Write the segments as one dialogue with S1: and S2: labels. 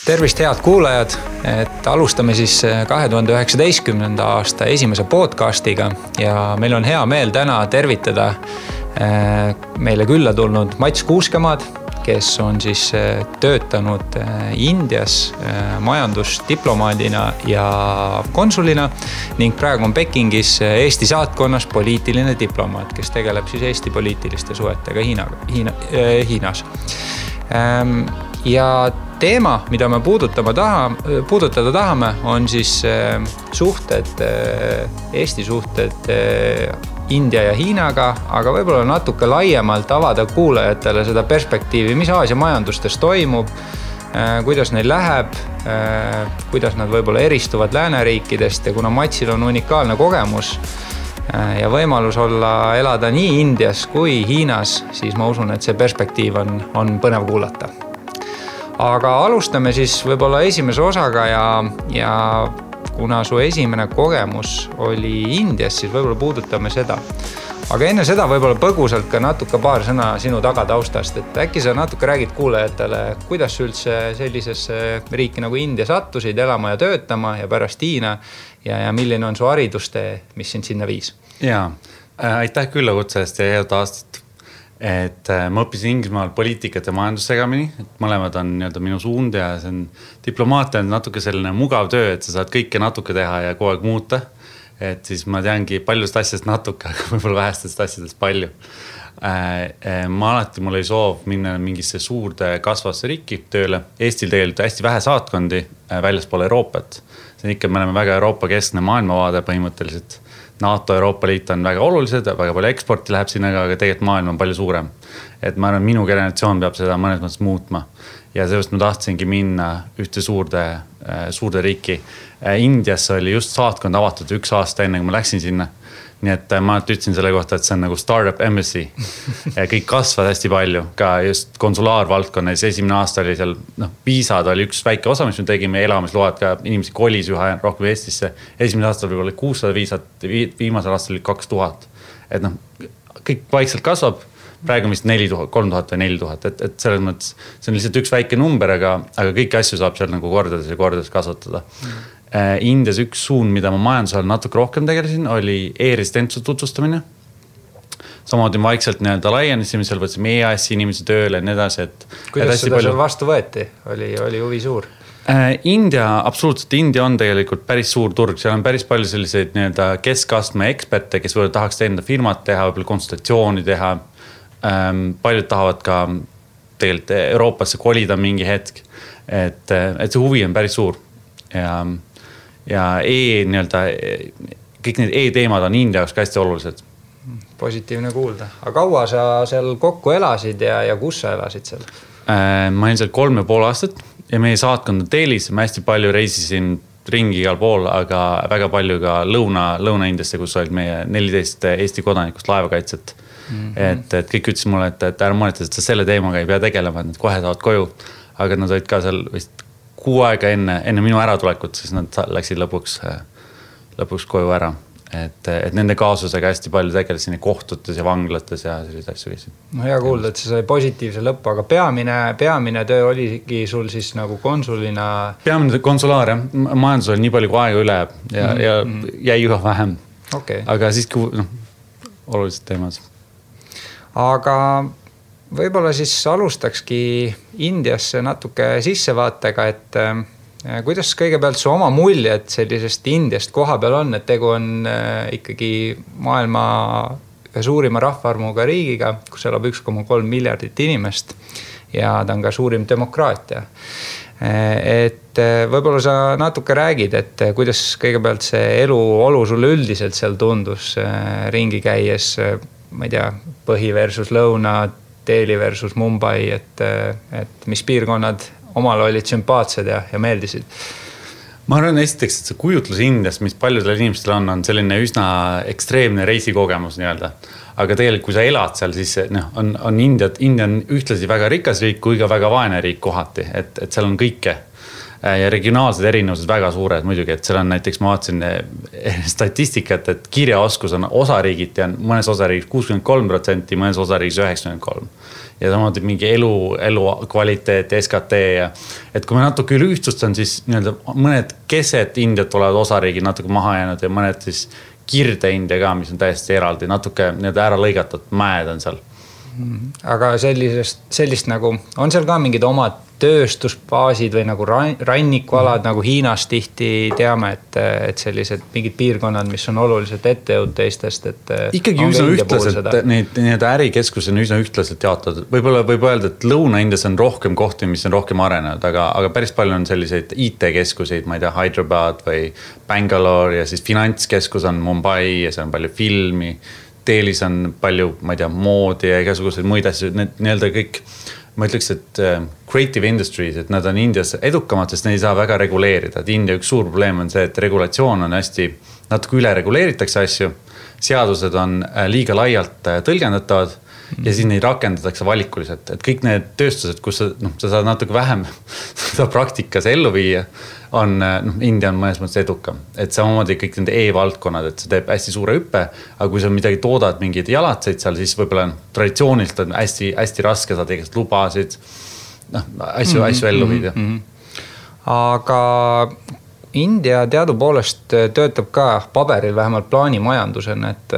S1: Tervist head kuulajad, et alustame siis 2019. aasta esimese podcastiga ja meil on hea meel täna tervitada meile külla tulnud Mats Kuuskemaad, kes on siis töötanud Indias majandusdiplomaadina ja konsulina ning praegu on Pekingis Eesti saatkonnas poliitiline diplomaat, kes tegeleb siis Eesti poliitiliste suhetega Hiinas. Ja teema, mida me puudutada tahame, on siis Eesti suhted India ja Hiinaga, aga võib-olla natuke laiemalt avada kuulajatele seda perspektiivi, mis Aasia majandustes toimub, kuidas neil läheb, kuidas nad võib-olla eristuvad lääneriikidest ja kuna Matsil on unikaalne kogemus ja võimalus elada nii Indias kui Hiinas, siis ma usun, et see perspektiiv on põnev kuulata. Aga alustame siis võib-olla esimese osaga ja kuna su esimene kogemus oli Indias, siis võib-olla puudutame seda. Aga enne seda võib-olla põgusalt ka natuke paar sõna sinu tagataustast, et äkki sa natuke räägid kuulajatele, kuidas üldse sellisesse riiki nagu India sattusid elama ja töötama ja pärast Hiina ja milline on su haridustee, mis sind sinna viis?
S2: Jaa, aitäh küllakutse eest ja head aastat. Et ma õppisin Inglismaal poliitikat ja majandussegamini, et mõlemad on minu suund ja see on diplomaatia on natuke selline mugav töö, et sa saad kõike natuke teha ja kogu aeg muuta. Et siis ma teangi paljust asjast natuke, aga võib-olla vähestest asjadest palju. Mul oli soov minna mingisse suurde kasvasse riiki tööle. Eestil tegelikult hästi vähe saatkondi väljaspool Euroopat. See on ikka, me oleme väga Euroopa keskne maailmavaade põhimõtteliselt. NATO, Euroopa Liit on väga olulised, väga palju eksporti läheb sinna, aga tegelikult maailm on palju suurem. Et ma arvan, minu generatsioon peab seda mõnes mõttes muutma. Ja sellest ma tahtsingi minna ühte suurde riiki. Indias oli just saatkond avatud 1 aasta enne, kui ma läksin sinna. Nii et ma ütlesin selle kohta, et see on nagu startup embassy. Kõik kasvad hästi palju, ka just konsulaarvaldkonnas. Esimene aasta oli seal, viisad oli üks väike osa, mis me tegime, elamisload ka inimesi kolis üha rohkem Eestisse. Esimene aasta oli 600 viisat, viimasel aastal oli 2000. Et kõik vaikselt kasvab, praegu vist 3000 või 4000, et selles mõttes see on lihtsalt üks väike number, aga kõiki asju saab seal nagu kordades kasvatada. Indias üks suund, mida ma majandusel natuke rohkem tegelesin, oli e-residentsuse tutvustamine. Samamoodi vaikselt laienesime, seal võtsime EAS-i inimesi tööle ja nii edasi.
S1: Kuidas seda seal vastu võeti? Oli huvi suur?
S2: Absoluutselt, India on tegelikult päris suur turg. Seal on päris palju selliseid keskastme eksperte, kes võivad tahaks enda firmat teha, võib-olla konsultatsiooni teha. Paljud tahavad ka tegelikult Euroopasse kolida mingi hetk. Et see huvi on päris suur. Ja kõik need e-teemad on India jaoks hästi olulised.
S1: Positiivne kuulda. Aga kaua sa seal kokku elasid ja kus sa elasid seal?
S2: Ma olin seal 3,5 aastat ja meie saatkond on Delhis. Ma hästi palju reisisin ringi igal pool, aga väga palju ka Lõuna-Indiasse, kus olid meie 14 Eesti kodanikust laevakaitset. Et kõik ütlesid mulle, et ära mõneta, et sa selle teemaga ei pea tegelema, et nad kohe saavad koju. Aga nad olid ka seal vist 6 aega enne minu äratulekut, siis nad läksid lõpuks koju ära. Et nende kaasusega hästi palju tegelesin kohtutes ja vanglates ja sellised asju.
S1: No hea kuulda, et see sai positiivse lõppu, aga peamine töö oligi sul siis nagu konsulina?
S2: Peamine konsulaar, jah. Majandus oli nii palju kui aega üle ja jäi üha vähem.
S1: Okay.
S2: Aga siiski olulised teemad.
S1: Aga võib-olla siis alustakski Indiasse natuke sissevaatega, et kuidas kõigepealt su oma muljed sellisest Indiast koha peal on, et tegu on ikkagi maailma ühe suurima rahvaarvuga riigiga, kus elab 1,3 miljardit inimest ja ta on ka suurim demokraatia. Et võib-olla sa natuke räägid, et kuidas kõigepealt see eluolu sulle üldiselt seal tundus ringi käies, ma ei tea, põhi versus lõuna, Delhi versus Mumbai, et mis piirkonnad omal olid sümpaatsed ja meeldisid?
S2: Ma arvan esiteks, et see kujutlus Indiast, mis paljudel inimestel on selline üsna ekstreemne reisikogemus nii-öelda. Aga tegelikult, kui sa elad seal, siis on India on ühtlasi väga rikas riik kui ka väga vaene riik kohati, et seal on kõike. ja regionaalsed erinevused väga suured muidugi, et seal on näiteks, ma vaatasin statistikat, et kirjaoskus on osariigiti on mõnes osariigis 63%, mõnes osariigis 93%. Ja samamoodi mingi elu kvaliteet, SKT ja et kui me natuke üle ühtstustan, siis nii-öelda mõned keset Indiat olevad osariigid natuke maha jäänud ja mõned siis Kirde India ka, mis on täiesti eraldi, natuke nii-öelda ära lõigatud mäed on seal.
S1: Aga sellist nagu, on seal ka mingid omad tööstusbaasid või nagu rannikualad nagu Hiinas tihti teame, et sellised mingid piirkonnad, mis on oluliselt ettejõud teistest, et
S2: ikkagi üsna ühtlaselt, need ärikeskused on üsna ühtlaselt jaotatud. Võib-olla võib öelda, et Lõuna-Indias on rohkem kohti, mis on rohkem arenenud, aga päris palju on selliseid IT-keskuseid, ma ei tea, Hyderabad või Bangalore ja siis finantskeskus on Mumbai ja see on palju filmi. Teelis on palju, ma ei tea, moodi ja igasuguseid muid asju, need nii-öelda kõik, ma ütleks, et creative industries, et nad on Indias edukamad, sest neid ei saa väga reguleerida. Et India üks suur probleem on see, et regulatsioon on hästi, natuke üle reguleeritakse asju, seadused on liiga laialt tõlgendatavad ja siis neid rakendatakse valikuliselt. Et kõik need tööstused, kus sa saad natuke vähem seda praktikas ellu viia, on, India on mõnes mõttes edukam. Et samamoodi kõik nende e-valdkonnad, et see teeb hästi suure hüppe, aga kui sa midagi toodad, mingid jalatseid seal, siis võib-olla traditsioonilt on hästi, hästi raske saada igast lubasid, asju ellu viida.
S1: Aga India teadupoolest töötab ka paberil vähemalt plaanimajandusena, et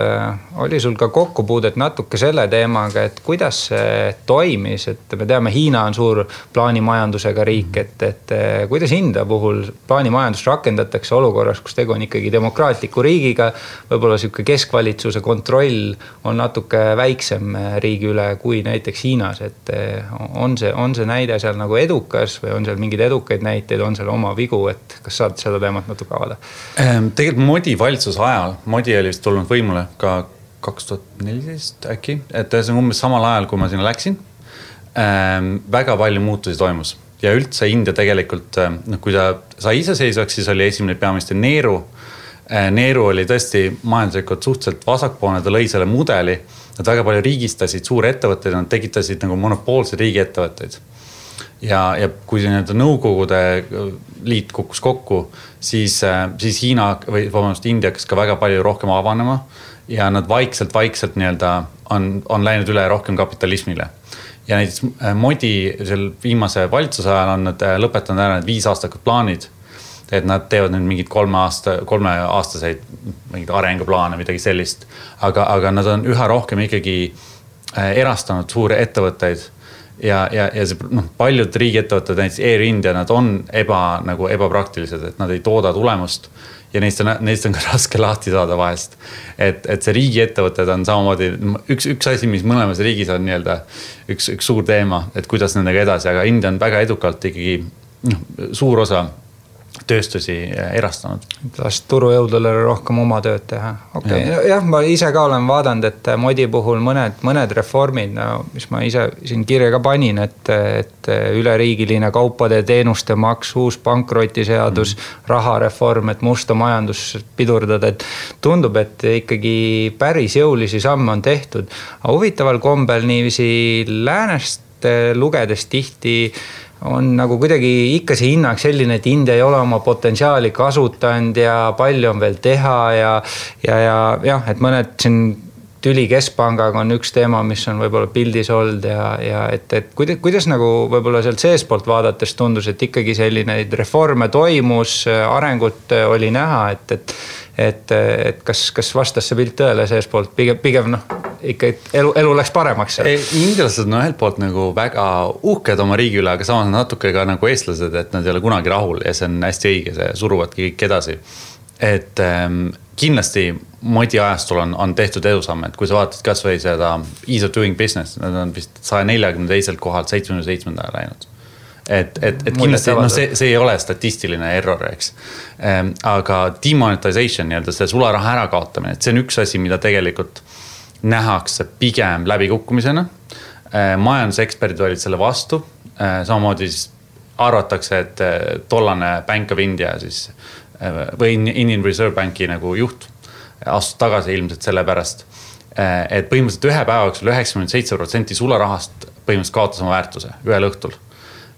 S1: oli sul ka kokkupuudet natuke selle teemaga, et kuidas see toimis, et me teame, Hiina on suur plaanimajandusega riik, et kuidas India puhul plaanimajandust rakendatakse olukorras, kus tegu on ikkagi demokraatliku riigiga, võib-olla selline keskvalitsuse kontroll on natuke väiksem riigi üle kui näiteks Hiinas, et on see näide seal nagu edukas või on seal mingid edukaid näiteid, on seal oma vigu, et kas saad seda teemat natuke avada?
S2: Tegelikult Modi valitsuse ajal, Modi oli vist tulnud võimule ka 2014 äkki, et see on umbes samal ajal, kui ma sinna läksin. Väga palju muutusi toimus ja üldse India tegelikult, kui ta sai iseseisvaks, siis oli esimene peaminister Nehru. Nehru oli tõesti majanduslikult suhteliselt vasakpoolne, ta lõi selle mudeli, nad väga palju riigistasid suuri ettevõtteid, nad tegitasid nagu monopoolseid riigiettevõtteid. Ja kui nii-öelda Nõukogude liit kukkus kokku, siis Hiina või India hakkas ka väga palju rohkem avanema ja nad vaikselt nii-öelda on läinud üle rohkem kapitalismile. Ja näiteks Modi seal viimase valitsuse ajal on nad lõpetanud ära need 5-aastakud plaanid, et nad teevad nüüd mingid 3-aastaseid mingid arenguplaane, midagi sellist, aga nad on üha rohkem ikkagi erastanud suuri ettevõtteid. Ja see, paljud riigiettevõtted, näiteks Air India, nad on ebapraktilised, et nad ei tooda tulemust ja neist on ka raske lahti saada vahest. Et see riigiettevõtted on samamoodi üks asi, mis mõlemas riigis on nii-öelda üks suur teema, et kuidas nendega edasi, aga India on väga edukalt ikkagi suur osa tööstusi erastanud.
S1: Last turujõudule rohkem oma tööd teha. Okay. Jah, ma ise ka olen vaadanud, et Modi puhul mõned reformid, mis ma ise siin kirja ka panin, et üleriigiline kaupade ja teenuste maks, uus pankrotiseadus, rahareform, et musta majandus pidurdada, et tundub, et ikkagi päris jõulisi samme on tehtud. Aga huvitaval kombel niiviisi läänest lugedes tihti on nagu kuidagi ikka see hinnang selline, et India ei ole oma potentsiaali kasutanud ja palju on veel teha ja, et mõned siin tüli keskpangaga on üks teema, mis on võib-olla pildis olnud ja et kuidas nagu võib-olla sealt seespoolt vaadates tundus, et ikkagi selline reforme toimus, arengut oli näha, et kas vastas see pilt tõele seespoolt, pigem ikka elu läks paremaks.
S2: Indialased on ühelt poolt nagu väga uhked oma riigi üle, aga samas natuke ka nagu eestlased, et nad ei ole kunagi rahul ja see on hästi õige, see suruvadki kõik edasi. Et kindlasti Modi ajastul on tehtud edusamme, et kui sa vaatad kas või seda Ease of Doing Business, nad on vist 142 kohalt 77 läinud. Et kindlasti, see ei ole statistiline error, eks. Aga demonetization, see sularaha ära kaotamine, et see on üks asi, mida tegelikult nähakse pigem läbikukkumisena. Majanduseksperdid olid selle vastu. Samamoodi arvatakse, et tollane Bank of India siis, või Indian Reserve Banki nagu juht astus tagasi ilmselt selle pärast, et põhimõtteliselt ühe päevaks 97% sularahast põhimõtteliselt kaotas oma väärtuse ühel õhtul.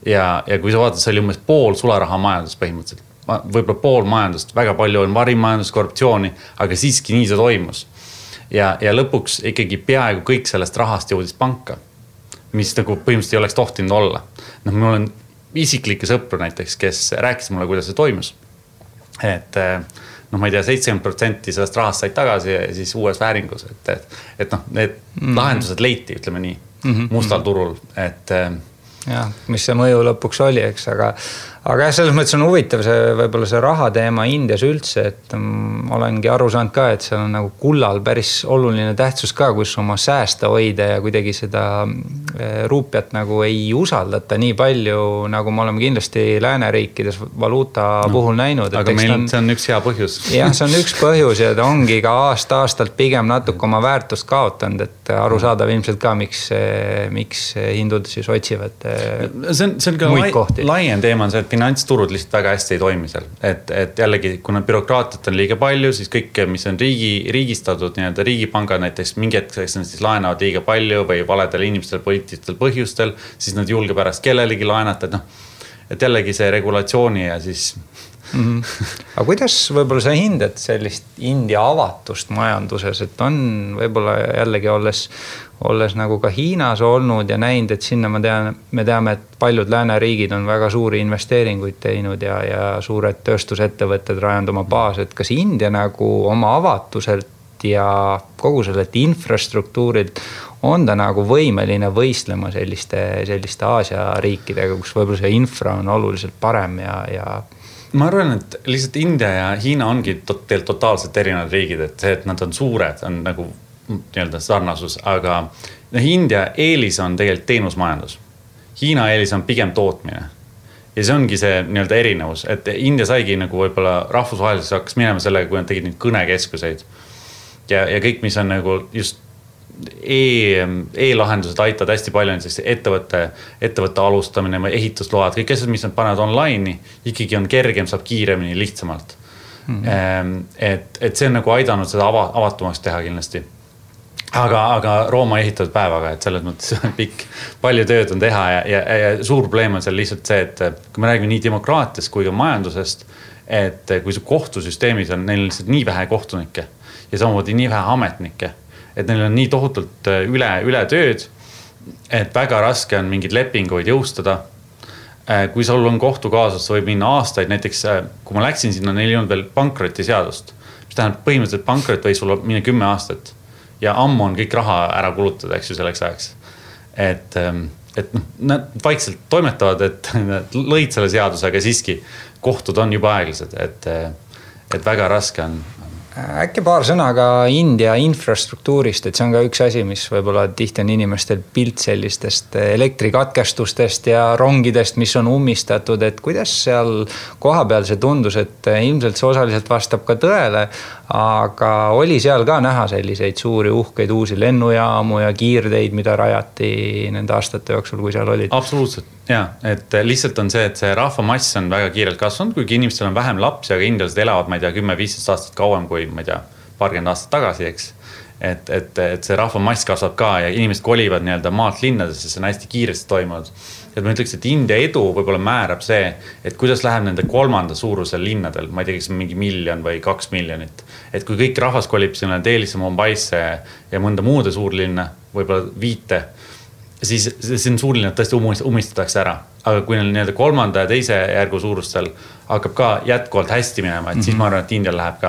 S2: ja kui sa vaatad, see oli umbes pool sularaha majandust põhimõtteliselt. Võib-olla pool majandust, väga palju on varimajandust, korruptsiooni, aga siiski nii see toimus. Ja lõpuks ikkagi peaaegu kõik sellest rahast jõudis panka, mis nagu põhimõtteliselt ei oleks tohtinud olla. Mul on isiklikke sõpru näiteks, kes rääkis mulle, kuidas see toimus. Et ma ei tea, 70% sellest rahast said tagasi ja siis uues vääringus. Et need lahendused leiti, ütleme nii, mustal turul.
S1: Jah, mis see mõju lõpuks oli, eks, aga selles mõttes on huvitav võib-olla see raha teema Indias üldse, et olengi aru saanud ka, et seal on nagu kullal päris oluline tähtsus ka, kus oma säästa hoida ja kuidagi seda ruupiat nagu ei usaldata nii palju, nagu me oleme kindlasti lääneriikides valuuta puhul näinud.
S2: Aga meil see on üks hea põhjus.
S1: Jah, see on üks põhjus ja ta ongi ka aastalt pigem natuke oma väärtust kaotanud, et aru saadav ilmselt ka, miks hindud siis otsivad
S2: see on ka laiem teema on see, et finantsturud lihtsalt väga hästi ei toimi seal. Et jällegi, kuna bürokraatiat on liiga palju, siis kõik, mis on riigistatud, nii-öelda riigipangad näiteks mingi hetkeks siis laenavad liiga palju või valedel inimestel poliitilistel põhjustel, siis nad julge pärast kellelegi laenata, et jällegi see regulatsiooni ja siis...
S1: Aga kuidas võib-olla sa hindad sellist India avatust majanduses, et on võib-olla jällegi olles nagu ka Hiinas olnud ja näinud, et sinna me teame, et paljud lääneriigid on väga suuri investeeringuid teinud ja suured tööstusettevõtted rajanud oma baas, et kas India nagu oma avatuselt ja kogu sellelt infrastruktuurilt on ta nagu võimeline võistlema selliste Aasia riikidega, kus võib-olla see infra on oluliselt parem ja
S2: ma arvan, et lihtsalt India ja Hiina ongi totaalselt erinevad riigid, et see, et nad on suured, on nagu nii-öelda sarnasus, aga India eelis on tegelikult teenusmajandus. Hiina eelis on pigem tootmine. Ja see ongi see nii-öelda erinevus, et India saigi nagu võib-olla rahvusvaheliselt hakkas minema sellega, kui nad tegid neid kõnekeskuseid. Ja kõik, mis on nagu just e-lahendused aitavad hästi palju ettevõtte alustamine või ehitusload, kõik asjad, mis nad panevad online'i, ikkagi on kergem, saab kiiremini, lihtsamalt. Et see on nagu aidanud seda avatumaks teha kindlasti. Aga Rooma ehitatud päevaga, et selles mõttes pikk, palju tööd on teha ja suur probleem on seal lihtsalt see, et kui me räägime nii demokraatiast kui ka majandusest, et kui see kohtusüsteemis on, neil on lihtsalt nii vähe kohtunikke ja samamoodi nii vähe ametnikke, et neil on nii tohutult üle tööd, et väga raske on mingid lepinguid jõustada. Kui sul on kohtukaasus, võib minna aastaid, näiteks kui ma läksin sinna, neil ei olnud veel pankrotiseadust, mis tähendab põhimõtteliselt pankrot või sul minna 10 aastat ja ammu on kõik raha ära kulutada, eks ju selleks ajaks. Et nad vaikselt toimetavad, et nad lõid selle seaduse, aga siiski kohtud on juba aeglased, et väga raske on.
S1: Äkki paar sõna ka India infrastruktuurist, et see on ka üks asi, mis võib-olla tihti on inimestel pilt sellistest elektrikatkestustest ja rongidest, mis on ummistatud, et kuidas seal kohapeal see tundus, et ilmselt see osaliselt vastab ka tõele, aga oli seal ka näha selliseid suuri uhkeid uusi lennujaamu ja kiirteid, mida rajati nende aastate jooksul, kui seal olid?
S2: Absoluutselt, jah, et lihtsalt on see, et see rahvamass on väga kiirelt kasvanud, kuigi inimestel on vähem lapsi, aga indialased elavad, ma ei tea, 10-15 aastat kauem kui, ma ei tea, paarkümmend aastat tagasi, eks. Et see rahvamass kasvab ka ja inimesed kolivad nii-öelda maalt linnadesse, see on hästi kiiresti toimunud. Et ma ütleks, et India edu võib-olla määrab see, et kuidas läheb nende kolmanda suurusel linnadel, ma ei tea, kas mingi 1 miljon või 2 miljonit. Et kui kõik rahvas kolib sinna Delhisse, Mumbaisse ja mõnda muude suurlinna, võib-olla 5, siis see on suurlinnad tõesti umistatakse ära. Aga kui neil nii-öelda 3. ja 2. järgu suurustel hakkab ka jätkuvalt hästi minema, et siis ma arvan, et Indial läheb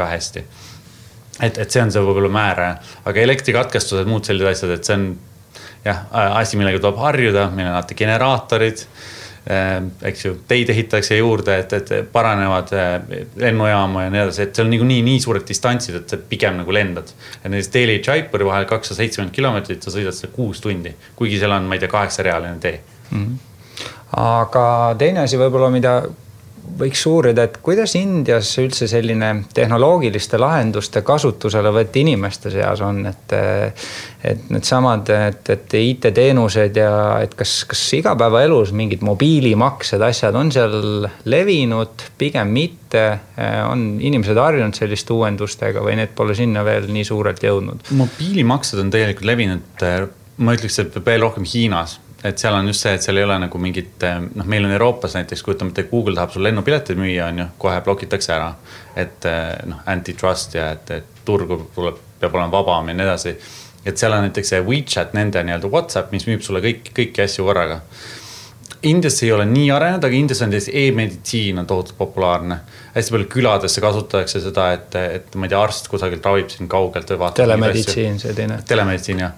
S2: ka hästi. Et see on see võib-olla määra, aga elektrikatkestused, muud sellised asjad, et see on asi, millega tuleb harjuda, meil on generaatorid, eks ju, teid ehitatakse juurde, et paranevad lennujaamu ja nii edasi, et see on nii suured distantsid, et see pigem nagu lendad. Ja näiteks Delhi Jaipuri vahel 270 kilomeetrit, sa sõidad seda 6 tundi, kuigi seal on, ma ei tea, 8-realine tee.
S1: Aga teine asi võib-olla, mida võiks uurida, et kuidas Indias üldse selline tehnoloogiliste lahenduste kasutusele võeti inimeste seas on, et need samad, et IT-teenused ja et kas igapäevaelus mingid mobiilimaksed asjad on seal levinud, pigem mitte, on inimesed harjunud selliste uuendustega või need pole sinna veel nii suurelt jõudnud?
S2: Mobiilimaksed on tegelikult levinud, ma ütleks, et veel rohkem Hiinas. et seal on just see, et seal ei ole nagu mingit, meil on Euroopas näiteks, kujutame, et Google tahab sul lennupileteid müüa, on ju, kohe blokitakse ära. Et antitrust ja et turgu peab olema vabam ja nii edasi. Et seal on näiteks see WeChat, nende nii-öelda WhatsApp, mis müüb sulle kõiki asju korraga. Indias ei ole nii arenenud, aga Indias on e-meditsiin on tohutult populaarne. Hästi palju küladesse kasutatakse seda, et ma ei tea, arst kusagilt ravib siin kaugelt või vaatab.
S1: Telemeditsiin, see teine.
S2: Telemeditsiin, jah.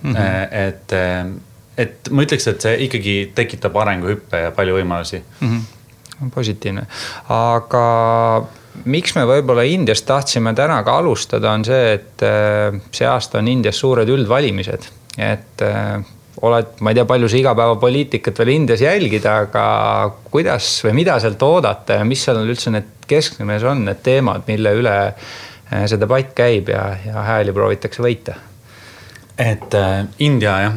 S2: Et ma ütleks, et see ikkagi tekitab arenguhüppe ja palju võimalusi.
S1: Positiivne. Aga miks me võib-olla Indias tahtsime täna ka alustada on see, et see aasta on Indias suured üldvalimised. Et ma ei tea, palju see igapäevapoliitikat veel Indias jälgida, aga kuidas või mida sealt oodata ja mis seal üldse need keskmes on need teemad, mille üle see debatt käib ja hääli proovitakse võita?
S2: Et India, jah,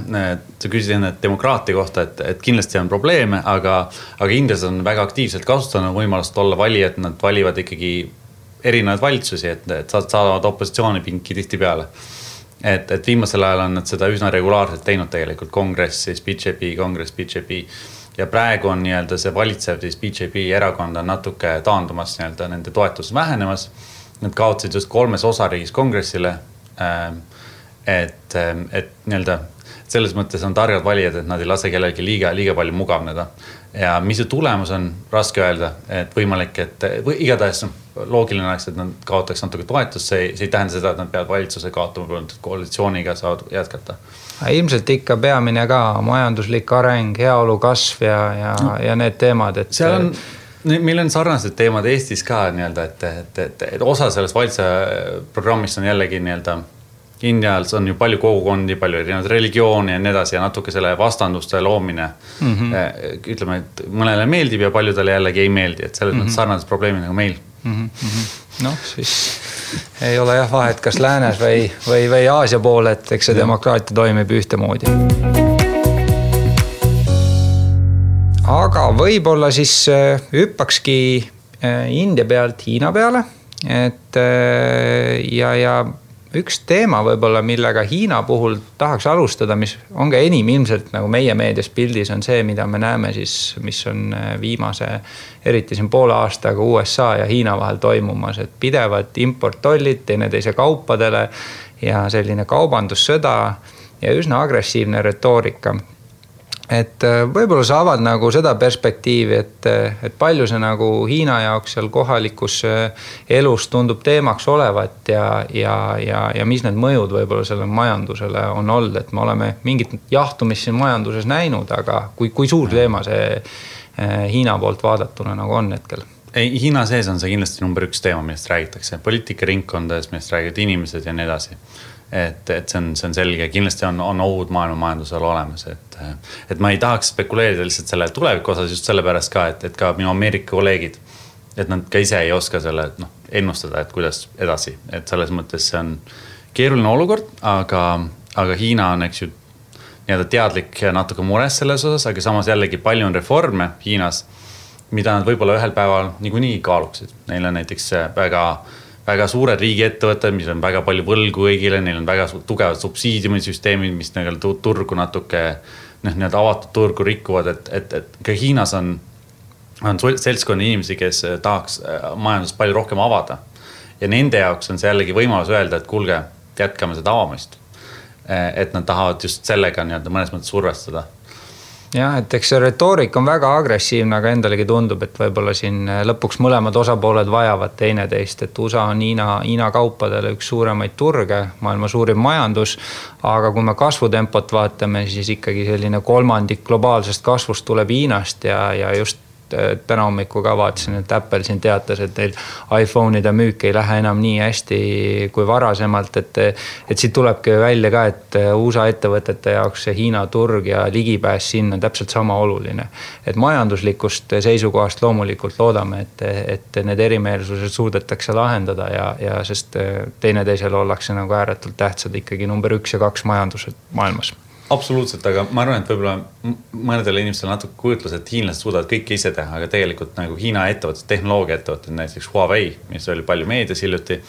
S2: sa küsisid enne demokraatia kohta, et kindlasti on probleeme, aga Indias on väga aktiivselt kasutanud võimalust olla vali, et nad valivad ikkagi erinevaid valitsusi, et saavad opositsioonipinki tihti peale. Et viimasel ajal on nad seda üsna regulaarselt teinud tegelikult kongress, siis BJP ja praegu on nii-öelda see valitsev siis BJP erakond on natuke taandumas nii-öelda nende toetus vähenemas. Nad kaotsid just 3 osariigis kongressile, et nii-öelda selles mõttes on targad valijad, et nad ei lase kellelgi liiga palju mugavneda. Ja mis see tulemus on, raske öelda, et võimalik, et igatahes loogiline oleks, et nad kaotaks natuke toetust, see ei tähenda seda, et nad peavad valitsuse kaotama, koalitsiooniga saavad jätkata.
S1: Ilmselt ikka peamine ka majanduslik areng, heaolu kasv ja need teemad, et
S2: seal on meil on sarnased teemad Eestis ka nii-öelda, et osa sellest valitsuse programmist on jällegi nii-öelda Indias on ju palju kogukondi, palju erinevaid religioone ja nii edasi ja natuke selle vastanduste loomine. Ütleme, et mõnele meeldib ja paljudele jällegi ei meeldi, et selles mõttes sarnased probleemid nagu meil.
S1: No siis ei ole jah vahet, kas läänes või Aasia pool, et eks see demokraatia toimib ühtemoodi. Aga võib-olla siis hüppakski India pealt Hiina peale, et ja üks teema võib-olla, millega Hiina puhul tahaks alustada, mis on ka enim ilmselt nagu meie meedias pildis on see, mida me näeme siis, mis on viimase, eriti siin poole aastaga USA ja Hiina vahel toimumas, et pidevad importtollid teineteise kaupadele ja selline kaubandussõda ja üsna agressiivne retoorika. Et võib-olla sa avad nagu seda perspektiivi, et palju see nagu Hiina jaoks seal kohalikus elus tundub teemaks olevat ja mis need mõjud võib-olla selle majandusele on olnud, et me oleme mingit jahtumist siin majanduses näinud, aga kui suur teema see Hiina poolt vaadatuna nagu on hetkel?
S2: Hiina sees on see kindlasti number 1 teema, millest räägitakse. Poliitikaringkondades, millest räägivad inimesed ja nii edasi. Et see on selge, kindlasti on ohud maailma majandusel olemas, et ma ei tahaks spekuleerida lihtsalt selle tuleviku osas just selle pärast ka, et ka minu Ameerika kolleegid, et nad ka ise ei oska selle ennustada, et kuidas edasi, et selles mõttes see on keeruline olukord, aga Hiina on eks ju nii-öelda teadlik ja natuke mures selles osas, aga samas jällegi palju on reforme Hiinas, mida nad võib-olla ühel päeval niikuinii kaaluksid. Neil on näiteks väga suured riigiettevõtted, mis on väga palju võlgu kõigile, neil on väga tugevad subsiidiumisüsteemid, mis turgu natuke need avatud turgu rikuvad, et ka Hiinas on seltskonna inimesi, kes tahaks majandust palju rohkem avada. Ja nende jaoks on see jällegi võimalus öelda, et kuulge, jätkame seda avamist. Et nad tahavad just sellega mõnes mõttes survestada.
S1: Jah, et eks see retoorik on väga agressiivne, aga endalegi tundub, et võib-olla siin lõpuks mõlemad osapooled vajavad teineteist, et USA on Hiina kaupadele üks suuremaid turge, maailma suurim majandus, aga kui me kasvutempot vaatame, siis ikkagi selline 3% globaalsest kasvust tuleb Hiinast ja just täna hommiku ka vaatasin, et Apple siin teatas, et teil iPhone'ide müük ei lähe enam nii hästi kui varasemalt, et siit tulebki välja ka, et USA ettevõtete jaoks see Hiina turg ja ligipääs sinna on täpselt sama oluline. Et majanduslikust seisukohast loomulikult loodame, et need erimeelsused suudetakse lahendada ja sest teineteisele ollakse nagu ääretult tähtsad ikkagi number 1 ja 2 majandused maailmas.
S2: Absoluutselt, aga ma arvan, et võib-olla mõnedele inimestele natuke kujutlus, et hiinlased suudavad kõike ise teha, aga tegelikult nagu Hiina ettevõtted, tehnoloogia ettevõtted, näiteks Huawei, mis oli palju meedias hiljuti,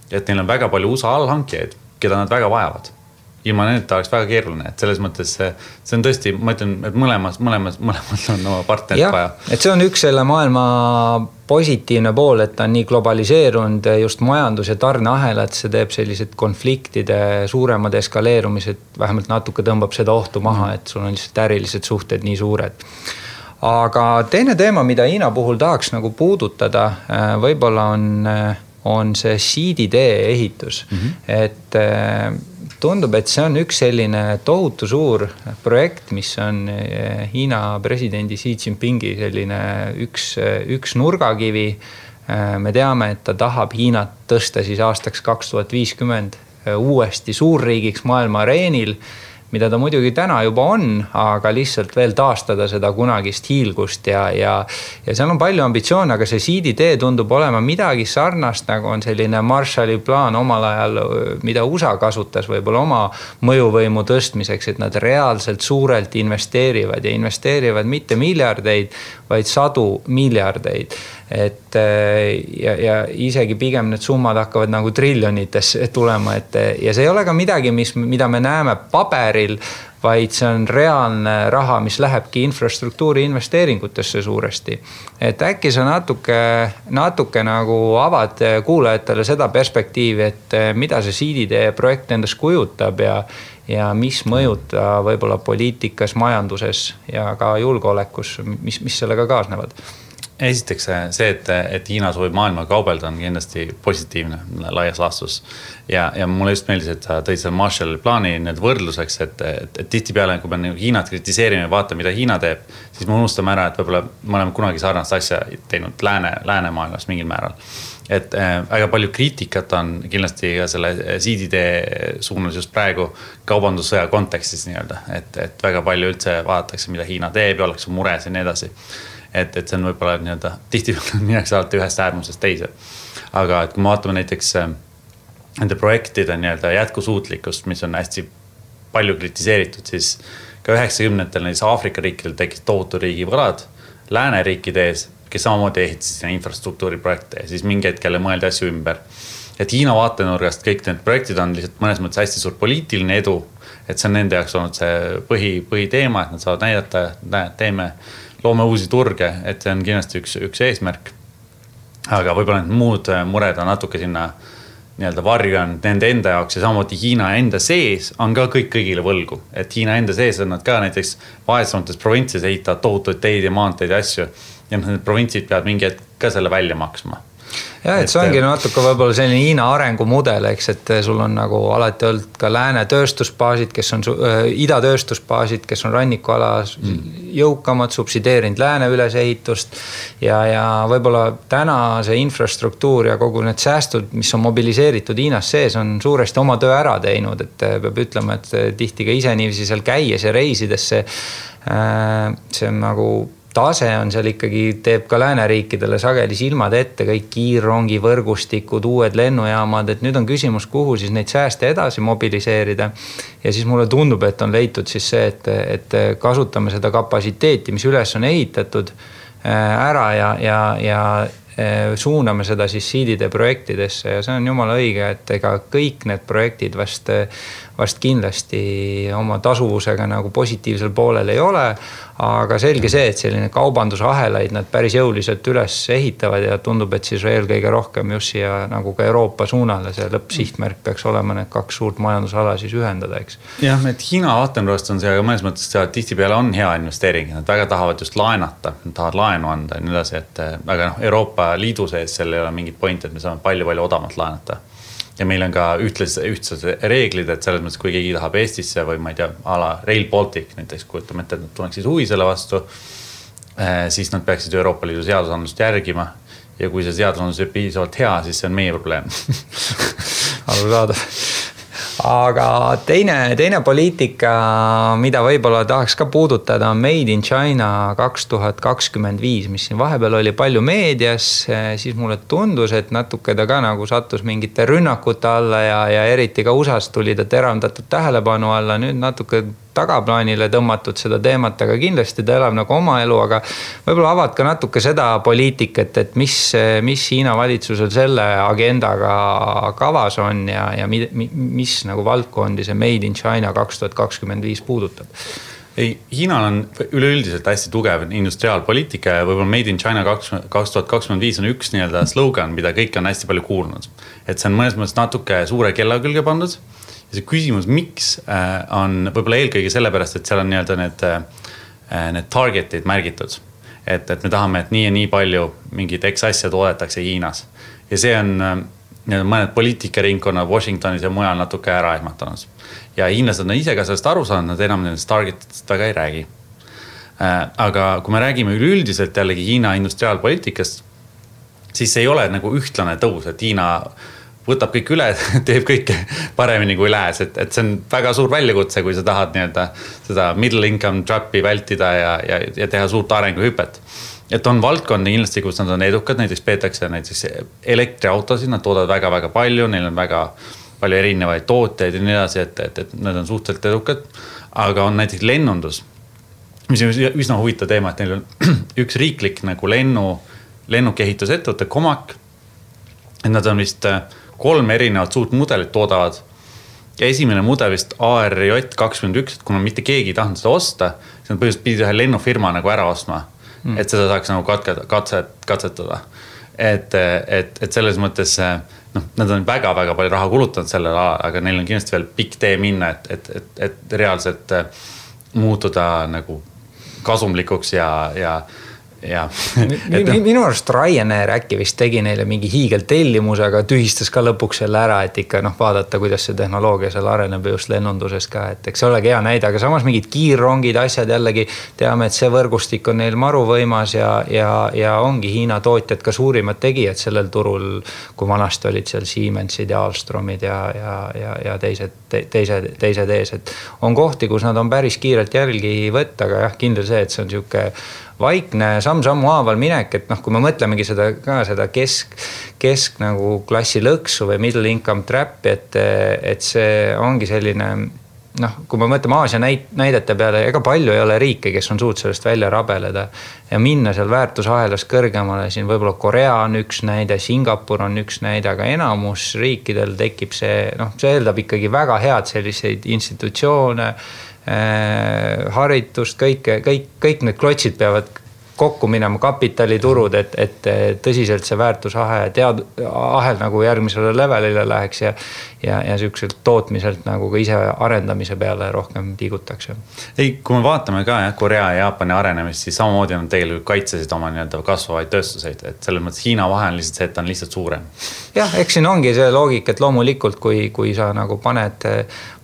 S2: et neil on väga palju USA allhankijaid, keda nad väga vajavad. ilma nendeta oleks väga keeruline, et selles mõttes see on tõesti, ma ütlen, et mõlemad on oma partnerit vaja.
S1: Et see on üks selle maailma positiivne pool, et ta on nii globaliseerunud just majandus- ja tarneahelad, see teeb sellised konfliktide suuremad eskaleerumised, vähemalt natuke tõmbab seda ohtu maha, et sul on lihtsalt ärilised suhted nii suured. Aga teine teema, mida Hiina puhul tahaks nagu puudutada, võib-olla on see siiditee ehitus. Et tundub, et see on üks selline tohutu suur projekt, mis on Hiina presidendi Xi Jinpingi selline üks nurgakivi. Me teame, et ta tahab Hiinat tõsta siis aastaks 2050 uuesti suurriigiks maailma areenil, mida ta muidugi täna juba on, aga lihtsalt veel taastada seda kunagist hiilgust ja seal on palju ambitsioone, aga see siiditee tundub olema midagi sarnast, nagu on selline Marshalli plaan omal ajal, mida USA kasutas võib-olla oma mõjuvõimu tõstmiseks, et nad reaalselt suurelt investeerivad ja investeerivad mitte miljardeid, vaid 100 miljardeid. Et ja isegi pigem need summad hakkavad nagu triljonites tulema, ja see ei ole ka midagi, mida me näeme paberil, vaid see on reaalne raha, mis lähebki infrastruktuuri investeeringutesse suuresti. Et äkki sa natuke nagu avad kuulajatele seda perspektiivi, et mida see siiditee projekt endast kujutab ja mis mõjuta võib-olla poliitikas, majanduses ja ka julgeolekus, mis sellega kaasnevad.
S2: Esiteks see, et Hiina soovib maailma kaubelda on kindlasti positiivne laias laastus. Ja mulle just meeldis, et sa tõid selle Marshalli plaani need võrdluseks, et tihtipeale, kui me Hiinat kritiseerime ja vaatame, mida Hiina teeb, siis me unustame ära, et võib-olla me oleme kunagi sarnast asja teinud läänemaailmas mingil määral. Et väga palju kriitikat on kindlasti ka selle siiditee suunas just praegu kaubandussõja kontekstis nii-öelda, et väga palju üldse vaadatakse, mida Hiina teeb ja ollakse mures ja nii edasi. Et see on võib-olla nii-öelda tihtipeale minnakse alati ühest äärmusest teise. Aga et kui me vaatame näiteks nende projektide nii-öelda jätkusuutlikkust, mis on hästi palju kritiseeritud, siis ka 90-ndatel näiteks Aafrika riikidel tekkis tohutu riigi võlad lääneriikide ees, kes samamoodi ehitasid infrastruktuuriprojekte ja siis mingi hetkele mõeldi asju ümber. Et Hiina vaatenurgast kõik need projektid on lihtsalt mõnes mõttes hästi suur poliitiline edu, et see on nende jaoks olnud see põhiteema, et nad saavad näidata, loome uusi turge, et see on kindlasti üks eesmärk. Aga võib-olla need muud mured on natuke sinna nii-öelda varju on nende enda jaoks ja samamoodi Hiina enda sees on ka kõigile võlgu. Et Hiina enda sees on nad ka näiteks vaesemates provintsides ehitavad tohutuid teid ja maanteid ja asju ja need provintsid peavad mingi hetk ka selle välja maksma.
S1: Ja, et see ongi natuke võib-olla selline Hiina arengumudel, eks, et sul on nagu alati olnud ka lääne tööstusbaasid, kes on ida tööstusbaasid, kes on rannikualas jõukamad, subsideerinud lääne ülesehitust ja võib-olla täna see infrastruktuur ja kogu need säästud, mis on mobiliseeritud Hiinas sees, on suuresti oma töö ära teinud, et peab ütlema, et tihti ka ise niiviisi seal käies ja reisides see on nagu tase on seal ikkagi, teeb ka lääneriikidele sageli silmad ette, kõik kiirrongi võrgustikud, uued lennujaamad, et nüüd on küsimus, kuhu siis neid sääste edasi mobiliseerida. Ja siis mulle tundub, et on leitud siis see, et kasutame seda kapasiteeti, mis üles on ehitatud ära ja suuname seda siis siidide projektidesse ja see on jumala õige, et ega kõik need projektid vast kindlasti oma tasuvusega nagu positiivsel poolel ei ole, aga selge see, et selline kaubandusahelaid nad päris jõuliselt üles ehitavad ja tundub, et siis eelkõige rohkem just siia nagu ka Euroopa suunale see lõppsihtmärk peaks olema need kaks suurt majandusala siis ühendada, eks.
S2: Jah, et Hiina vaatenurgast on see, aga mõnes mõttes tihtipeale on hea investeering, nad väga tahavad just laenata, nad tahavad laenu anda ja nii edasi, et aga Euroopa Liidu sees seal ei ole mingit point, et me saame palju odavamalt laenata. Ja meil on ka ühtsed reeglid, et selles mõttes, kui keegi tahab Eestisse või ma ei tea, ala Rail Baltic näiteks, kujutame ette, et nad tunneks siis huvi selle vastu, siis nad peaksid Euroopa Liidu seadusandlust järgima ja kui see seadusandlus ei piisavalt hea, siis see on meie probleem.
S1: Arusaadav. Aga teine poliitika, mida võib-olla tahaks ka puudutada, on Made in China 2025, mis siin vahepeal oli palju meedias, siis mulle tundus, et natuke ta ka nagu sattus mingite rünnakute alla ja eriti ka USAs tuli ta teravdatud tähelepanu alla, nüüd natuke tagaplaanile tõmmatud seda teemat, aga kindlasti ta elab nagu oma elu, aga võib-olla avad ka natuke seda poliitikat, et mis Hiina valitsusel selle agendaga kavas on ja mis nagu valdkondi see Made in China 2025 puudutab.
S2: Ei, Hiinal on üleüldiselt hästi tugev industriaalpoliitika ja võib-olla Made in China 2025 on üks nii-öelda slogan, mida kõik on hästi palju kuulnud. Et see on mõnes mõttes natuke suure kella külge pandud. Ja see küsimus, miks on võib-olla eelkõige sellepärast, et seal on nii-öelda need targetid märgitud. Et me tahame, et nii ja nii palju mingid X asja toodetakse Hiinas. Ja see on mõned poliitikaringkonnad Washingtonis ja mujal natuke ära ehmatanud. Ja hiinlased on ise ka sellest aru saanud, nad enam nendest targetitest väga ei räägi. Aga kui me räägime üleüldiselt jällegi Hiina industriaalpoliitikast, siis ei ole nagu ühtlane tõus, et Hiina võtab kõik üle, teeb kõike paremini kui lääs. Et see on väga suur väljakutse, kui sa tahad nii-öelda seda middle income trapi vältida ja teha suurt arenguhüpet. Et on valdkondi kindlasti, kus nad on edukad, näiteks peetakse näiteks elektriautosid, nad toodavad väga-väga palju, neil on väga palju erinevaid tooteid ja nii edasi, et nad on suhteliselt edukad. Aga on näiteks lennundus, mis on üsna huvitav teema, et neil on üks riiklik nagu lennukeehitusettevõte Comac. Et nad on vist 3 erinevat suurt mudelit toodavad. Ja esimene mudel vist ARJ21, et kuna mitte keegi ei tahtnud seda osta, siis nad põhimõtteliselt pidid ühe lennufirma nagu ära ostma, et seda saaks nagu katsetada. Et selles mõttes nad on väga-väga palju raha kulutanud sellel alal, aga neil on kindlasti veel pikk tee minna, et reaalselt muutuda nagu kasumlikuks ja
S1: minu arust Ryanair äkki vist tegi neile mingi hiigeltellimus, aga tühistas ka lõpuks selle ära, et ikka vaadata, kuidas see tehnoloogia seal areneb just lennunduses ka, et eks see olegi hea näide, aga samas mingid kiirrongid, asjad jällegi teame, et see võrgustik on neil maru võimas ja ongi Hiina tootjad ka suurimad tegijad sellel turul, kui vanasti olid seal Siemensid ja Alstromid ja teised ees, et on kohti, kus nad on päris kiirelt jälgi võtta, aga jah, kindel see, et see on siuke vaikne samm-sammu haaval minek, et kui me mõtlemegi seda kesk nagu klassi lõksu või middle income trap, et see ongi selline, kui me mõtleme Aasia näidete peale, ega palju ei ole riike, kes on suut sellest välja rabeleda ja minna seal väärtusahelas kõrgemale, siin võib-olla Korea on üks näide, Singapur on üks näide, aga enamus riikidel tekib see eeldab ikkagi väga head selliseid institutsioone, haritust, kõik need klotsid peavad kokku minema, kapitaliturud, et tõsiselt see väärtusahel nagu järgmisele levelile läheks ja sükselt tootmiselt nagu ka ise arendamise peale rohkem liigutakse.
S2: Ei, kui me vaatame ka Korea ja Jaapani arenemist, siis samamoodi on tegelikult kaitsesid oma nii-öelda kasvavaid tööstuseid, et selles mõttes Hiina vahe on lihtsalt see, et on lihtsalt suurem.
S1: Jah, eks siin ongi see loogik, et loomulikult, kui sa nagu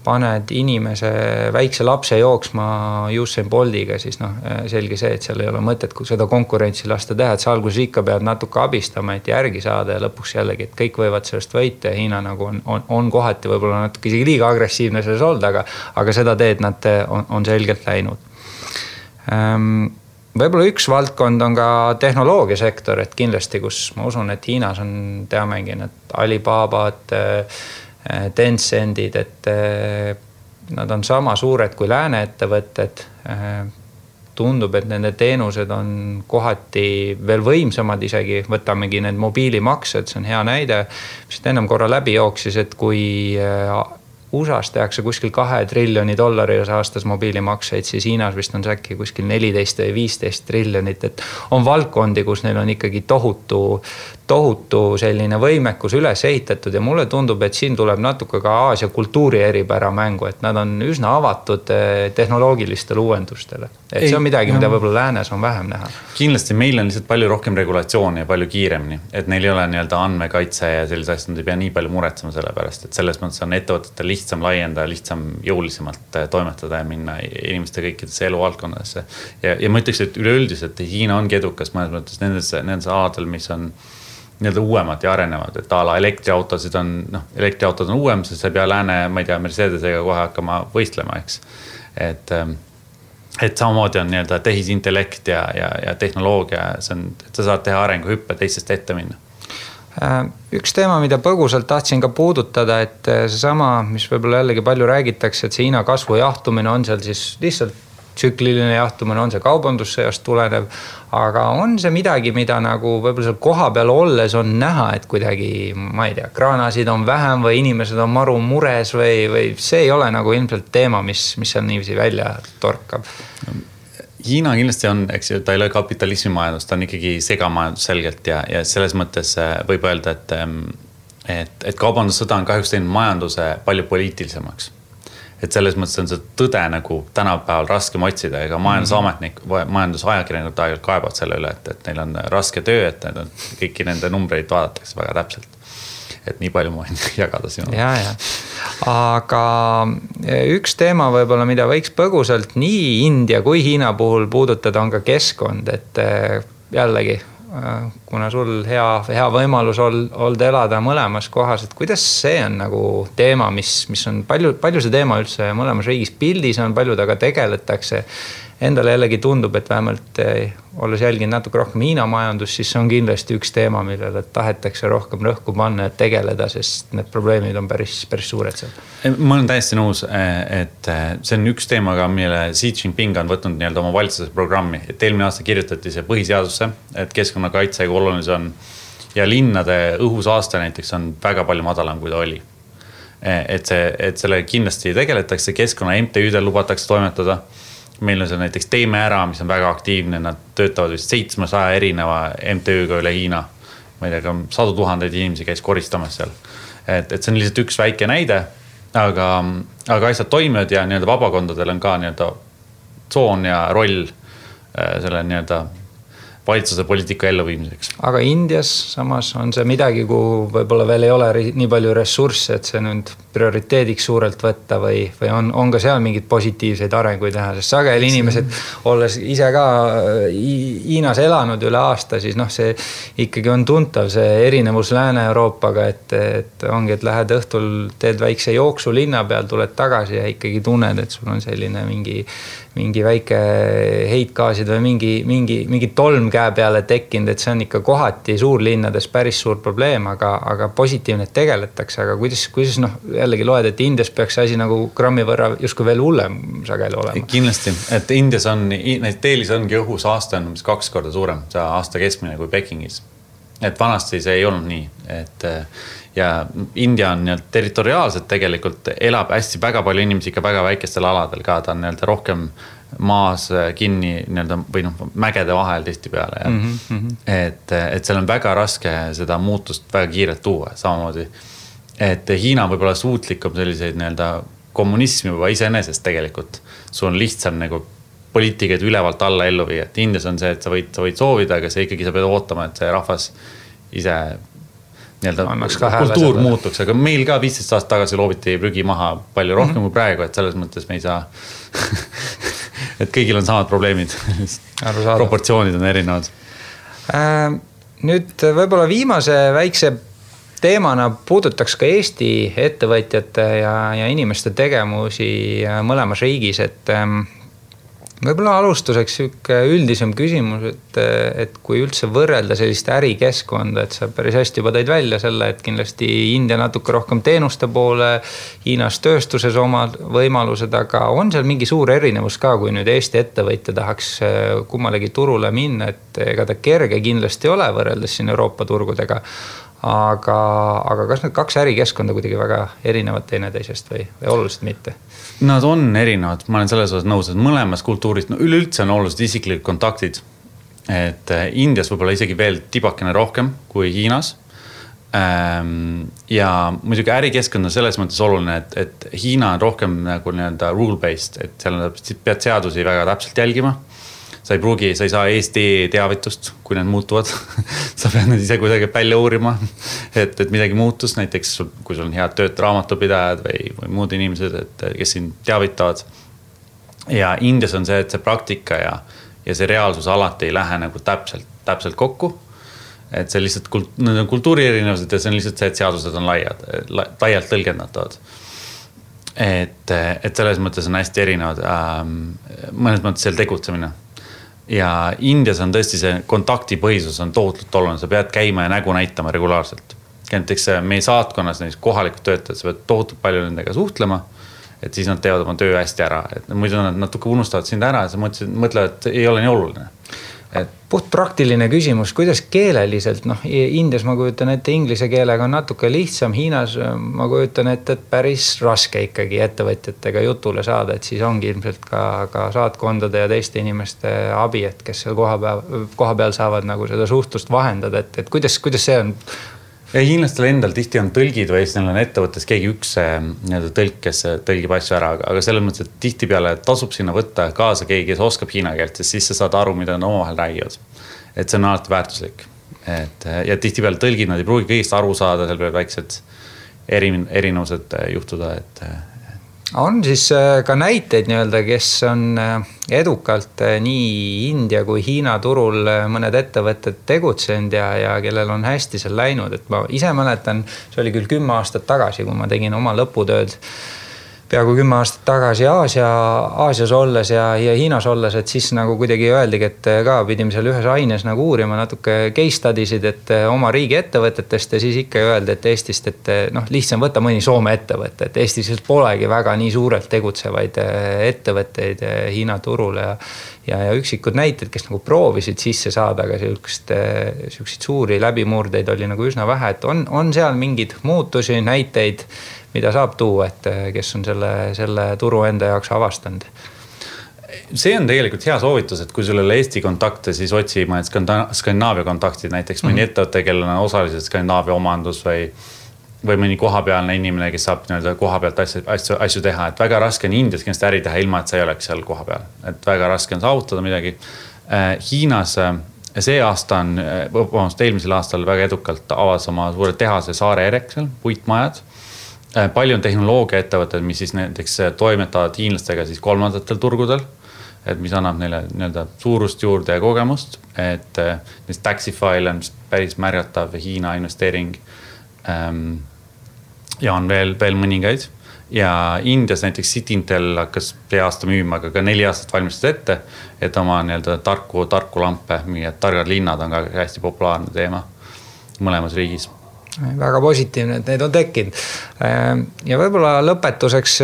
S1: paned inimese väikse lapse jooksma Usain Boltiga, siis selge see, et seal ei ole mõtet, kui seda konkurentsi lasta teha, et sa alguses ikka pead natuke abistama, et järgi saada ja lõpuks jällegi, et kõik võivad sellest võita ja Hiina nagu on kohati võib-olla natuke isegi liiga agressiivne selles olnud, aga seda teed nad on selgelt läinud. Võib-olla üks valdkond on ka tehnoloogiasektor, et kindlasti, kus ma usun, et Hiinas on, teamegi need Alibabad, Tencentid, et nad on sama suured kui lääne ettevõtted. Tundub, et nende teenused on kohati veel võimsamad isegi, võtamegi need mobiilimaksed, see on hea näide, mis ennem korra läbi jooksis, et kui USA-s tehakse kuskil $2 triljoni aastas mobiilimakseid, siis Hiinas vist on see äkki kuskil 14 või 15 triljonit, et on valdkondi, kus neil on ikkagi tohutu selline võimekus üles ehitatud ja mulle tundub, et siin tuleb natuke ka Aasia kultuuri eripära mängu, et nad on üsna avatud tehnoloogilistele uuendustele. Et see on midagi, mida võib-olla läänes on vähem näha.
S2: Kindlasti meil on lihtsalt palju rohkem regulatsiooni ja palju kiiremini, et neil ei ole nii-öelda andmekaitse ja sellise asjad, nad ei pea nii palju muretsema selle pärast, et selles mõttes on ettevõtetel lihtsam laienda, lihtsam jõulisemalt toimetada ja minna inimeste kõikidesse eluvaldkondadesse. Ja ma ütleks, et üleüldiselt Hiina ongi edukas mõnes mõttes nendes aladel, mis on nii-öelda uuemad ja arenevad, et ala elektriautod on uuem, sest sa ei pea lääne, ma ei tea, Mercedesega kohe hakkama võistlema, eks. Et samamoodi on nii-öelda tehisintellekt ja tehnoloogia, see on, et sa saad teha arenguhüppe teistest ette minna.
S1: Üks teema, mida põgusalt tahtsin ka puudutada, et seesama, mis võib-olla jällegi palju räägitakse, et see Hiina kasvu jahtumine on seal siis lihtsalt tsükliline jahtumine, on see kaubandussõjast tulenev, aga on see midagi, mida nagu võib-olla seal koha peal olles on näha, et kuidagi, ma ei tea, kraanasid on vähem või inimesed on maru mures või see ei ole nagu ilmselt teema, mis seal niiviisi välja torkab.
S2: Hiina kindlasti on, eks ju, ta ei ole kapitalismi majandus, ta on ikkagi segamajandus selgelt ja selles mõttes võib öelda, et kaubandussõda on kahjuks teinud majanduse palju poliitilisemaks. Et selles mõttes on see tõde nagu tänapäeval raskem otsida, ega majandusametnik, majandusajakirjanikud aeg-ajalt kaebavad selle üle, et neil on raske töö, et kõiki nende numbreid vaadatakse väga täpselt. Et nii palju ma võin jagada sinu.
S1: Ja. Aga üks teema võib-olla, mida võiks põgusalt nii India kui Hiina puhul puudutada, on ka keskkond, et jällegi, kuna sul hea võimalus olda elada mõlemas kohas, et kuidas see on nagu teema, mis on palju see teema üldse mõlemas riigis pildis on, palju taga tegeletakse. Endale jällegi tundub, et vähemalt olles jälginud natuke rohkem Hiina majandus, siis see on kindlasti üks teema, millele tahetakse rohkem rõhku panna ja tegeleda, sest need probleemid on päris suured seal.
S2: Ma olen täiesti nõus, et see on üks teema, mille Xi Jinping on võtnud nii-öelda oma valitsuse programmi, et eelmine aasta kirjutati see põhiseadusse, et keskkonnakaitse kui oluline see on ja linnade õhusaaste näiteks on väga palju madalam, kui ta oli. Et selle kindlasti tegeletakse, keskkonna MTÜ-del lubatakse toimetada. Meil on see näiteks Teeme ära, mis on väga aktiivne, nad töötavad vist 700 erineva MTÜ-ga üle Hiina. Ma ei tea, 100 000 inimesi käis koristamas seal. Et see on lihtsalt üks väike näide, aga asjad toimivad ja nii-öelda vabakondadel on ka nii-öelda tsoon ja roll selle nii-öelda valitsuse poliitika elluviimiseks.
S1: Aga Indias samas on see midagi, kuhu võib-olla veel ei ole nii palju ressursse, et see nüüd prioriteediks suurelt võtta või on ka seal mingid positiivseid arenguid teha, sest sageli inimesed, olles ise ka Hiinas elanud üle aasta, siis see ikkagi on tuntav see erinevus Lääne-Euroopaga, et ongi, et lähed õhtul, teed väikse jooksu linna peal, tuled tagasi ja ikkagi tunned, et sul on selline mingi väike heitgaasid või mingi tolm käe peale tekkinud, et see on ikka kohati suurlinnades päris suur probleem, aga positiivne tegeletakse, aga kuidas jällegi loed, et Indias peaks asi nagu grammi võrra justkui veel hullem sageli olema.
S2: Kindlasti, et Indias on, Delis ongi õhusaaste on 2 korda suurem, see aasta keskmine kui Pekingis. Et vanasti see ei olnud nii, et ja India on territoriaalselt tegelikult elab hästi väga palju inimesi ikka väga väikestel aladel ka, ta on rohkem maas kinni või mägede vahel tihti peale. Et seal on väga raske seda muutust väga kiirelt tuua samamoodi. Et Hiina võib olla suutlikum selliseid kommunismi juba iseenesest tegelikult. Sul on lihtsam poliitikaid ülevalt alla ellu viia. Et Indias on see, et sa võid soovida, aga see ikkagi sa pead ootama, et see rahvas ise kultuur muutuks, aga meil ka 15 aastat tagasi loobiti prügi maha palju rohkem kui praegu, et selles mõttes me ei saa et kõigil on samad probleemid proportsioonid on erinevad.
S1: Nüüd võib-olla viimase väikse teemana puudutaks ka Eesti ettevõtjate ja inimeste tegemusi mõlemas riigis, et võib-olla alustuseks üldisem küsimus, et kui üldse võrrelda sellist ärikeskkonda, et sa päris hästi juba tõid välja selle, et kindlasti India natuke rohkem teenuste poole, Hiinas tööstuses omad võimalused, aga on seal mingi suur erinevus ka, kui nüüd Eesti ettevõtja tahaks kummalegi turule minna, et ega ta kerge kindlasti ole võrreldes siin Euroopa turgudega, aga kas need 2 ärikeskkonda kuidagi väga erinevad teineteisest või oluliselt mitte?
S2: Nad on erinevad, ma olen selles osas nõus, et mõlemas kultuuris, üleüldse on olulised isiklikud kontaktid, et Indias võib-olla isegi veel tibakene rohkem kui Hiinas. Ja muidugi ärikeskkond on selles mõttes oluline, et Hiina on rohkem nagu rule-based, et seal pead seadusi väga täpselt jälgima. Sa ei saa Eesti teavitust, kui need muutuvad. Sa pead need ise kuidagi välja uurima, et midagi muutus. Näiteks, kui sul on head tööd raamatupidajad või muud inimesed, kes siin teavitavad. Ja Indias on see, et see praktika ja see reaalsus alati ei lähe nagu täpselt kokku. Et see lihtsalt kultuuri erinevused ja see on lihtsalt see, et seadused on laialt tõlgendatavad. Et selles mõttes on hästi erinevad mõnes mõttes seal tegutsemine. ja Indias on tõesti see kontaktipõhisus on tohutult oluline, sa pead käima ja nägu näitama regulaarselt. Näiteks meie saatkonnas näiteks kohalikud töötajad, sa pead tohutult palju nendega suhtlema, et siis nad teevad oma töö hästi ära, et muidu nad natuke unustavad sind ära ja sa mõtlevad, et ei ole nii oluline.
S1: Puht praktiline küsimus, kuidas keeleliselt, Indias ma kujutan ette inglise keelega on natuke lihtsam, Hiinas ma kujutan ette, et päris raske ikkagi ettevõtjatega jutule saada, et siis ongi ilmselt ka saatkondade ja teiste inimeste abi, et kes seal koha peal saavad nagu seda suhtlust vahendada, et kuidas see on?
S2: Ja hiinlastel endal tihti on tõlgid või siis neil on ettevõttes keegi üks tõlk, kes tõlgib asju ära, aga selles mõttes, et tihti peale tasub sinna võtta kaasa keegi, kes oskab hiina keelt, siis sa saad aru, mida nad omavahel räägivad. Et see on alati väärtuslik. Ja tihti peale tõlgid, nad ei pruugi kõigist aru saada, seal peavad väiksed erinevused juhtuda,
S1: On siis ka näiteid nii-öelda, kes on edukalt nii India kui Hiina turul mõned ettevõtted tegutsenud ja kellel on hästi seal läinud, et ma ise mäletan, see oli küll 10 aastat tagasi, kui ma tegin oma lõputööd peaaegu 10 aastat tagasi Aasias olles ja Hiinas olles, et siis nagu kuidagi öeldigi, et ka pidime seal ühes aines nagu uurima natuke case studies'id, et oma riigi ettevõtetest ja siis ikka öeldi, et Eestist, et lihtsam võtta mõni Soome ettevõte, et Eestis polegi väga nii suurelt tegutsevaid ettevõtteid Hiina turul ja üksikud näited, kes nagu proovisid sisse saada, aga selliseid suuri läbimurdeid oli nagu üsna vähe, et on seal mingid muutusi, näiteid, mida saab tuua, et kes on selle turu enda jaoks avastanud?
S2: See on tegelikult hea soovitus, et kui sul ole Eesti kontakte, siis otsi mõned Skandinaavia kontaktid, näiteks mõni ettevõte, kellel on osaliselt Skandinaavia omandus või mõni kohapealne inimene, kes saab kohapealt asju teha, et väga raske on Indias kindlasti äri teha ilma, et sa ei oleks seal kohapeal, et väga raske on saavutada midagi. Hiinas see aasta eelmisel aastal väga edukalt avas oma suure tehase Saare Ereksel, puitmajad. Palju on tehnoloogia ettevõtted, mis siis näiteks toimetavad hiinlastega siis kolmandatel turgudel, et mis annab neile suurust juurde ja kogemust, et Taxify on päris märgatav Hiina investeering ja on veel mõningaid. Ja Indias näiteks Cityintel hakkas see aasta müüma, aga ka 4 aastat valmistas ette, et oma tarku lampe, mingid targad linnad on ka hästi populaarne teema mõlemas riigis.
S1: Väga positiivne, et need on tekkinud. Ja võib-olla lõpetuseks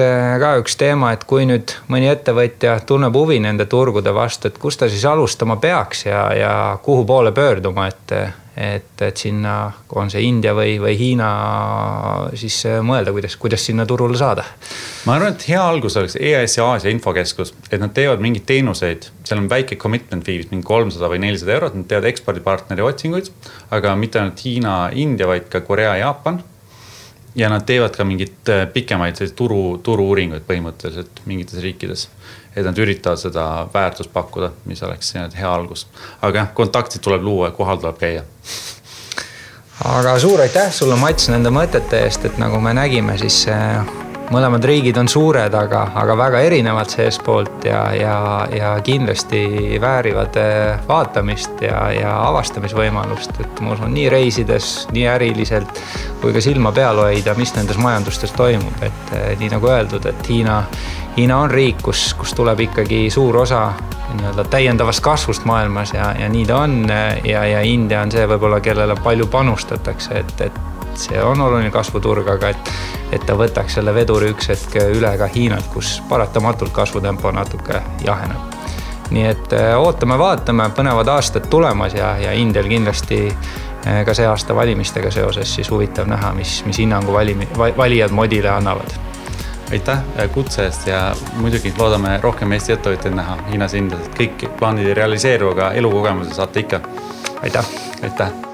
S1: ka üks teema, et kui nüüd mõni ettevõtja tunneb huvi nende turgude vastu, et kus ta siis alustama peaks ja kuhu poole pöörduma, et sinna on see India või Hiina siis mõelda, kuidas sinna turule saada.
S2: Ma arvan, et hea algus oleks EAS ja Aasia infokeskus, et nad teevad mingid teenuseid, seal on väike commitment fee, mingi 300 või 400 €, nad teevad ekspordipartneri otsinguid, aga mitte ainult Hiina, India, vaid ka Korea, Jaapan. Ja nad teevad ka mingid pikemaid turu-uuringuid põhimõtteliselt mingites riikides, et nad üritavad seda väärtust pakkuda, mis oleks hea algus. Aga kontaktid tuleb luua ja kohal tuleb käia.
S1: Aga suur aitäh sulle, Mats, nende mõtete eest, et nagu me nägime, siis mõlemad riigid on suured, aga väga erinevad seespoolt ja kindlasti väärivad vaatamist ja avastamisvõimalust, et ma usun nii reisides, nii äriliselt kui ka silma peal hoida, mis nendes majandustes toimub, et nii nagu öeldud, et Hiina on riik, kus tuleb ikkagi suur osa täiendavast kasvust maailmas ja nii ta on ja India on see võib-olla, kellele palju panustatakse, et see on oluline kasvuturg, aga et ta võtaks selle veduri üks hetk üle ka Hiinalt, kus paratamatult kasvutempo natuke jaheneb. Nii et vaatame, põnevad aastad tulemas ja Indial kindlasti ka see aasta valimistega seoses siis huvitav näha, mis hinnangu valijad modile annavad.
S2: Aitäh kutse eest ja muidugi loodame rohkem Eesti ettevõtjaid näha Hiinas, Indias, et kõik plaanid ei realiseeru, aga elukogemuse saate ikka.
S1: Aitäh!
S2: Aitäh!